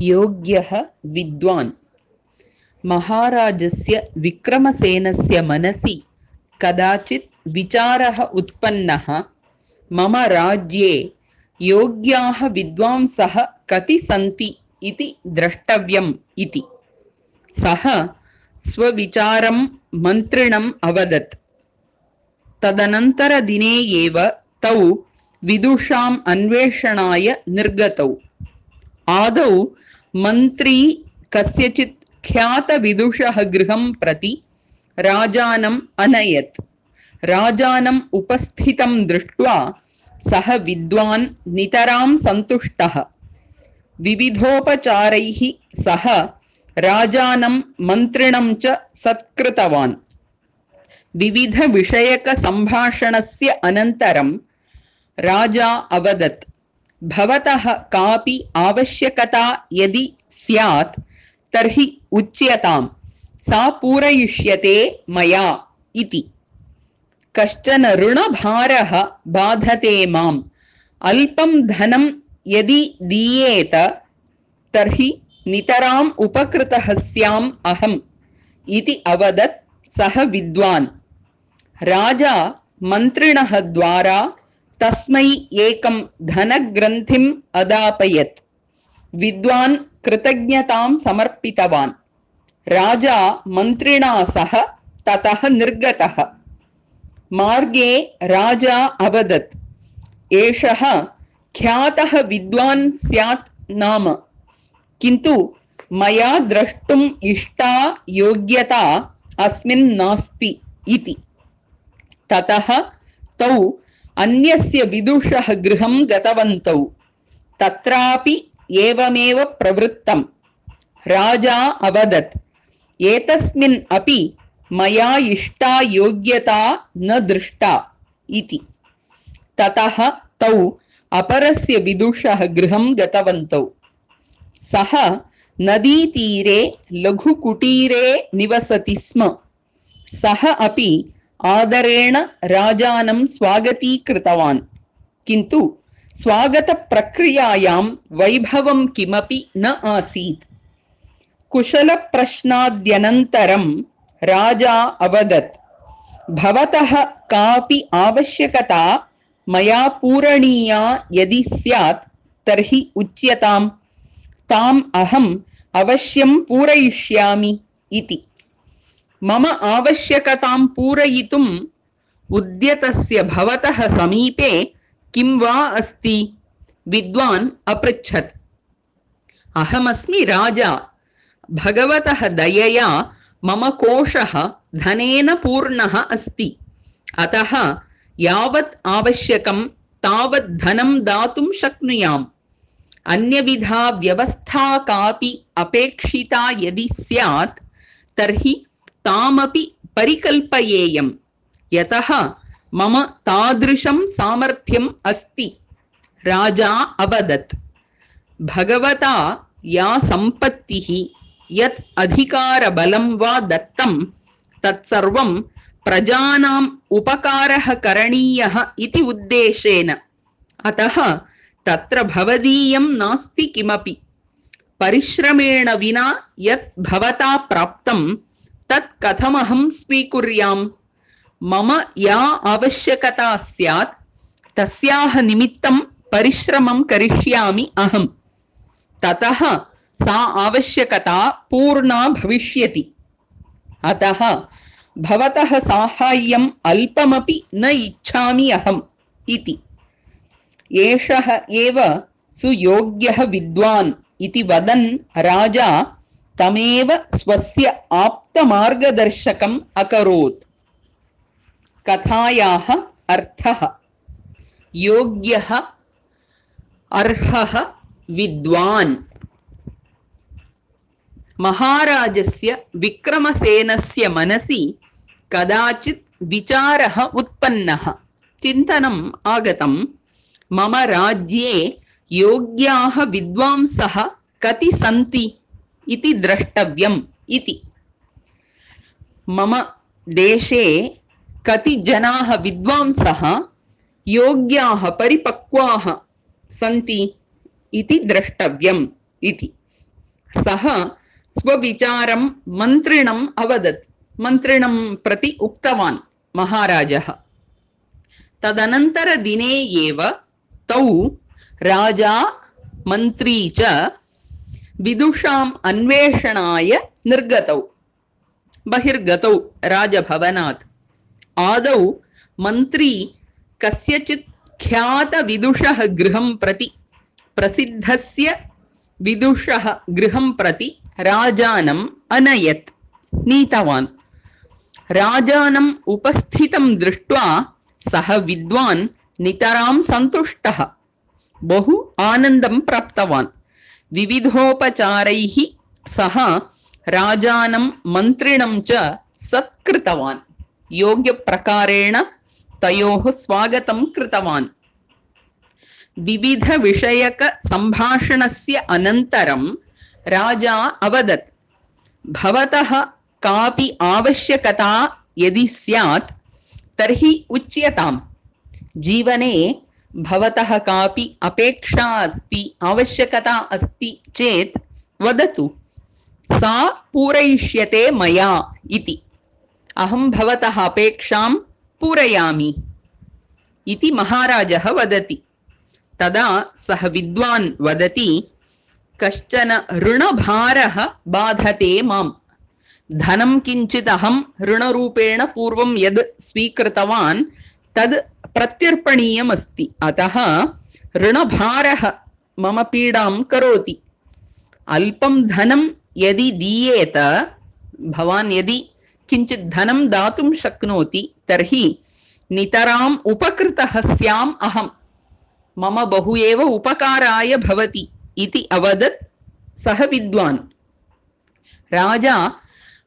योग्यः विद्वान्। महाराजस्य विक्रमसेनस्य मनसि कदाचित् विचारः उत्पन्नः, मम राज्ये योग्याः विद्वांसः कति सन्ति इति द्रष्टव्यम् इति। सः स्वविचारं मन्त्रिणम् अवदत्। तदनन्तरदिने एव तौ विदुषाम् अन्वेषणाय निर्गतौ। आदौ मन्त्री कस्यचित् ख्यातविदुषः गृहं प्रति राजानम् अनयत्। राजानम् उपस्थितं दृष्ट्वा सः विद्वान् नितरां सन्तुष्टः। विविधोपचारैः सः राजानं मन्त्रिणं च सत्कृतवान्। विविधविषयकसम्भाषणस्य अनन्तरं राजा अवदत्, भवतः कापि आवश्यकता यदि स्यात् तर्हि उच्यताम्, सा पूरयिष्यते मया इति। कश्चन ऋणभारः बाधते माम्, अल्पं धनं यदि दीयेत तर्हि नितराम् उपकृतः स्याम् अहम् इति अवदत् सः विद्वान्। राजा मन्त्रिणः द्वारा तस्मै एकं धनग्रन्थिम् अदापयत्। विद्वान् कृतज्ञतां समर्पितवान्। राजा मन्त्रिणा सह ततः निर्गतः। मार्गे राजा अवदत्, एषः ख्यातः विद्वान् स्यात् नाम, किन्तु मया द्रष्टुम् इष्टा योग्यता अस्मिन् नास्ति इति। ततः तौ अन्यस्य विदुषः गृहं गतवन्तौ। तत्रापि एवमेव प्रवृत्तम्। राजा अवदत्, एतस्मिन् अपि मया इष्टा योग्यता न दृष्टा इति। ततः तौ अपरस्य विदुषः गृहं गतवन्तौ। सः नदीतीरे लघुकुटीरे निवसति स्म। सः अपि आदरेण राजानं स्वागतीकृतवान्, किन्तु स्वागतप्रक्रियायां वैभवं किमपि न आसीत्। कुशलप्रश्नाद्यनन्तरं राजा अवदत्, भवतः कापि आवश्यकता मया पूरणीया यदि स्यात् तर्हि उच्यताम्, ताम् अहम् अवश्यं पूरयिष्यामि इति। मम आवश्यकतां पूरयितुम् उद्यतस्य भवतः समीपे किं वा अस्ति? विद्वान् अपृच्छत्। अहमस्मि राजा, भगवतः दयया मम कोशः धनेन पूर्णः अस्ति। अतः यावत् आवश्यकं तावत् धनं दातुं शक्नुयाम्। अन्यविधा व्यवस्था कापि अपेक्षिता यदि स्यात् तर्हि तामपि परिकल्पयेयम्, यतः मम तादृशं सामर्थ्यम् अस्ति। राजा अवदत्, भगवता या सम्पत्तिः यत् अधिकारबलं वा दत्तं तत्सर्वं प्रजानाम् उपकारः करणीयः इति उद्देशेन। अतः तत्र भवदीयं नास्ति किमपि। परिश्रमेण विना यत् भवता प्राप्तं तत् कथमहं स्वीकुर्याम्? मम या आवश्यकता स्यात् तस्याः निमित्तं परिश्रमं करिष्यामि अहम्। ततः सा आवश्यकता पूर्णा भविष्यति। अतः भवतः साहाय्यम् अल्पमपि न इच्छामि अहम् इति। एषः एव सुयोग्यः विद्वान् इति वदन् राजा तमेव स्वस्य आप्तमार्गदर्शकम् अकरोत्। कथायाः अर्थः। योग्यः अर्हः विद्वान्। महाराजस्य विक्रमसेनस्य मनसि कदाचित् विचारः उत्पन्नः। चिन्तनम् आगतं, मम राज्ये योग्याः विद्वांसः कति सन्ति इति द्रष्टव्यम् इति। मम देशे कति जनाः विद्वांसः योग्याः परिपक्वाः सन्ति इति द्रष्टव्यम् इति। सः स्वविचारं मन्त्रिणम् अवदत्, मन्त्रिणं प्रति उक्तवान् महाराजः। तदनन्तरदिने एव तौ राजा मन्त्री च विदुषाम् अन्वेषणाय निर्गतौ, बहिर्गतौ राजभवनात्। आदौ मन्त्री कस्यचित् ख्यातविदुषः गृहं प्रति, प्रसिद्धस्य विदुषः गृहं प्रति राजानम् अनयत्, नीतवान्। राजानम् उपस्थितं दृष्ट्वा सः विद्वान् नितरां सन्तुष्टः, बहु आनन्दं प्राप्तवान्। विविधोपचारैः सः राजानं मन्त्रिणं च सत्कृतवान्, योग्यप्रकारेण तयोः स्वागतं कृतवान्। विविधविषयकसम्भाषणस्य अनन्तरं राजा अवदत्, भवतः कापि आवश्यकता यदि स्यात् तर्हि उच्यताम्। जीवने भवतः कापि अपेक्षा अस्ति, आवश्यकता अस्ति चेत् वदतु, सा पूरयिष्यते मया इति। अहं भवतः अपेक्षां पूरयामि इति महाराजः वदति। तदा सः विद्वान् वदति, कश्चन ऋणभारः बाधते माम्। धनं किञ्चित् अहं ऋणरूपेण पूर्वं यद् स्वीकृतवान् तद् प्रत्यर्पणीयमस्ति, अतः ऋणभारः मम पीडां करोति। अल्पं धनं यदि दीयेत, भवान् यदि किञ्चित् धनं दातुं शक्नोति तर्हि नितराम् उपकृतः स्याम् अहम्, मम बहु एव उपकाराय भवति इति अवदत् सः विद्वान्। राजा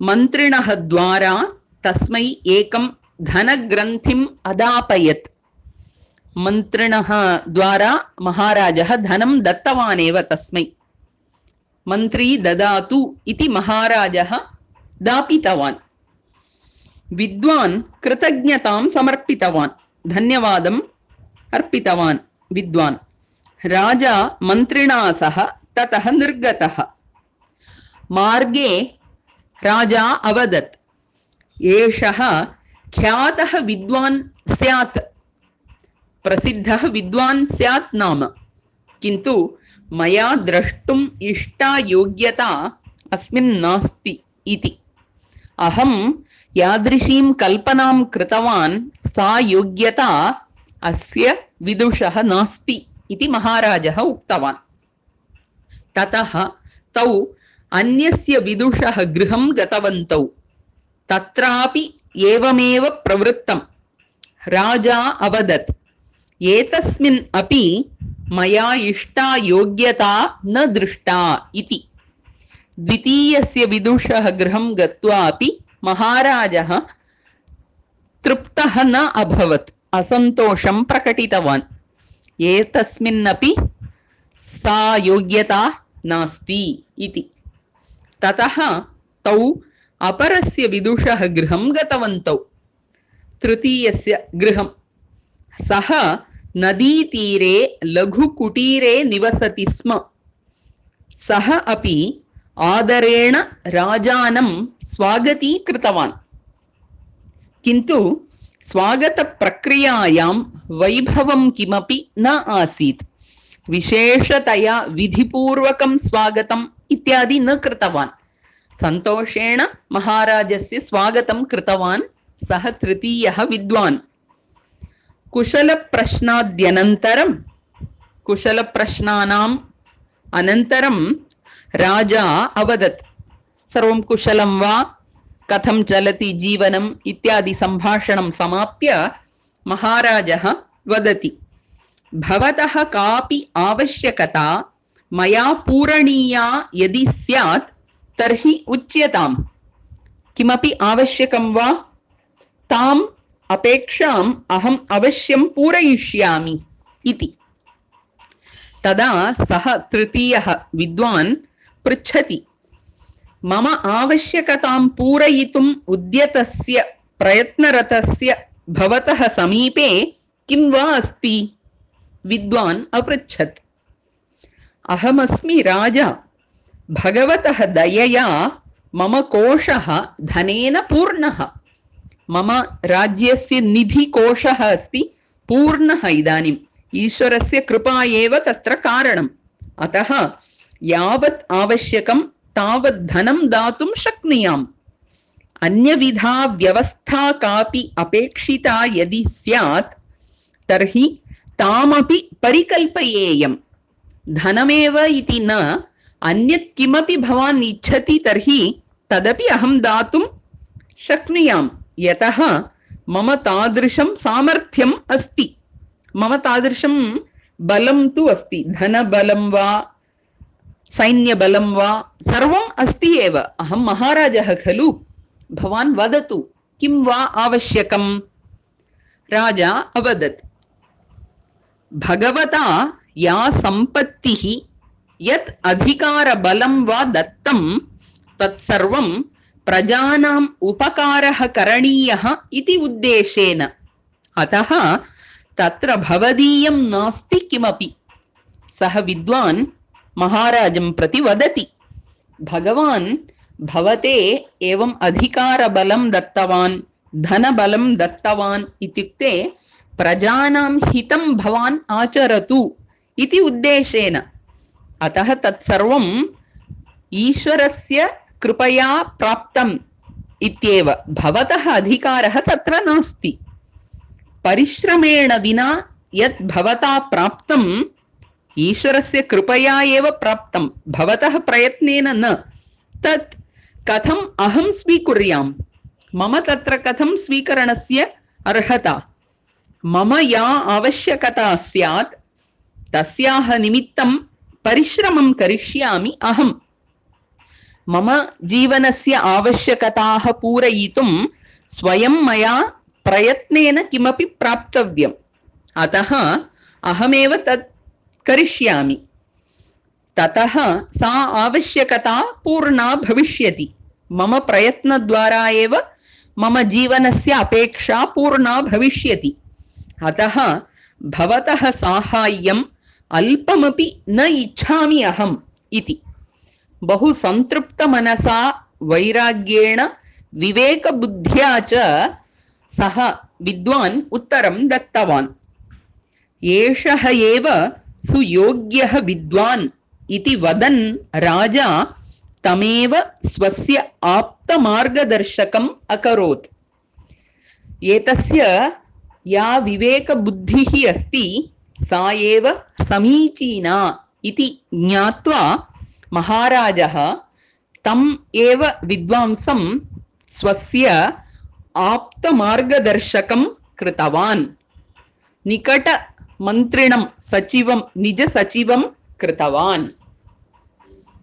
मन्त्रिणः द्वारा तस्मै एकं धनग्रन्थिम् अदापयत्। मन्त्रिणः द्वारा महाराजः धनं दत्तवानेव तस्मै। मन्त्री ददातु इति महाराजः दापितवान्। विद्वान् कृतज्ञतां समर्पितवान्, धन्यवादम् अर्पितवान् विद्वान्। राजा मन्त्रिणा सह ततः निर्गतः। मार्गे राजा अवदत्, एषः ख्यातः विद्वान् स्यात्, प्रसिद्धः विद्वान् स्यात् नाम, किन्तु मया द्रष्टुम् इष्टा योग्यता अस्मिन् नास्ति इति। अहं यादृशीं कल्पनां कृतवान् सा योग्यता अस्य विदुषः नास्ति इति महाराजः उक्तवान्। ततः तौ अन्यस्य विदुषः गृहं गतवन्तौ। तत्रापि एवमेव प्रवृत्तं। राजा अवदत्, एतस्मिन् अपि मया इष्टा योग्यता न दृष्टा इति। द्वितीयस्य विदुषः गृहं गत्वा अपि महाराजः तृप्तः न अभवत्, असन्तोषं प्रकटितवान्। एतस्मिन्नपि सा योग्यता नास्ति इति। ततः तौ अपरस्य विदुषः गृहं गतवन्तौ। तृतीयस्य गृहं। सः नदीतीरे लघुकुटीरे निवसति स्म। सः अपि आदरेण राजानं स्वागतीकृतवान्, किन्तु स्वागतप्रक्रियायां वैभवं किमपि न आसीत्। विशेषतया विधिपूर्वकं स्वागतम् इत्यादि न कृतवान्। सन्तोषेण महाराजस्य स्वागतं कृतवान् सः तृतीयः विद्वान्। कुशलप्रश्नाद्यनन्तरं, कुशलप्रश्नानाम् अनन्तरं राजा अवदत्, सर्वं कुशलं वा, कथं चलति जीवनम् इत्यादि सम्भाषणं समाप्य महाराजः वदति, भवतः कापि आवश्यकता मया पूरणीया यदि स्यात् तर्हि उच्यताम्। किमपि आवश्यकं वा, ताम् अपेक्षाम् अहम् अवश्यं पूरयिष्यामि इति। तदा सः तृतीयः विद्वान् पृच्छति, मम आवश्यकतां पूरयितुम् उद्यतस्य प्रयत्नरतस्य भवतः समीपे किं वा अस्ति? विद्वान् अपृच्छत्। अहमस्मि राजा, भगवतः दयया मम कोशः धनेन पूर्णः। मम राज्यस्य निधिकोशः अस्ति पूर्णः इदानीम्। ईश्वरस्य कृपा एव तत्र कारणम्। अतः यावत् आवश्यकं तावत् धनं दातुं शक्नुयाम्। अन्यविधा व्यवस्था कापि अपेक्षिता यदि स्यात् तर्हि तामपि परिकल्पयेयम्। धनमेव इति न, अन्यत् किमपि भवान् इच्छति तर्हि तदपि अहं दातुं शक्नुयाम्, यतः मम तादृशं सामर्थ्यम् अस्ति, मम तादृशं बलं तु अस्ति। धनबलं वा सैन्यबलं वा सर्वम् अस्ति एव। अहं महाराजः खलु। भवान् वदतु किं वा आवश्यकम्? राजा अवदत्, भगवता या सम्पत्तिः यत् अधिकारबलं वा दत्तं तत्सर्वं प्रजानाम् उपकारः करणीयः इति उद्देशेन। अतः तत्र भवदीयं नास्ति किमपि। सः विद्वान् महाराजं प्रति वदति, भगवान् भवते एवम् अधिकारबलं दत्तवान्, धनबलं दत्तवान् इत्युक्ते प्रजानां हितं भवान् आचरतु इति उद्देशेन। अतः तत्सर्वम् ईश्वरस्य कृपया प्राप्तम् इत्येव। भवतः अधिकारः तत्र नास्ति। परिश्रमेण विना यत् भवता प्राप्तम् ईश्वरस्य कृपया एव प्राप्तं, भवतः प्रयत्नेन न। तत् कथम् अहं स्वीकुर्याम्? मम तत्र कथं स्वीकरणस्य अर्हता? मम या आवश्यकता स्यात् तस्याः निमित्तं परिश्रमं करिष्यामि अहम्। मम जीवनस्य आवश्यकताः पूरयितुं स्वयं मया प्रयत्नेन किमपि प्राप्तव्यम्। अतः अहमेव तत् करिष्यामि। ततः सा आवश्यकता पूर्णा भविष्यति। मम प्रयत्नद्वारा एव मम जीवनस्य अपेक्षा पूर्णा भविष्यति। अतः भवतः साहाय्यम् अल्पमपि न इच्छामि अहम् इति बहु संतृप्तमनसा वैराग्येण विवेकबुद्ध्या च सः विद्वान् उत्तरं दत्तवान्। एषः एव सुयोग्यः विद्वान् इति वदन् राजा तमेव स्वस्य आप्तमार्गदर्शकम् अकरोत्। एतस्य या विवेकबुद्धिः अस्ति सा एव समीचीना इति ज्ञात्वा महाराजः तम् एव विद्वांसं स्वस्य आप्तमार्गदर्शकं कृतवान्। निकटमन्त्रिणं सचिवं निजसचिवं कृतवान्।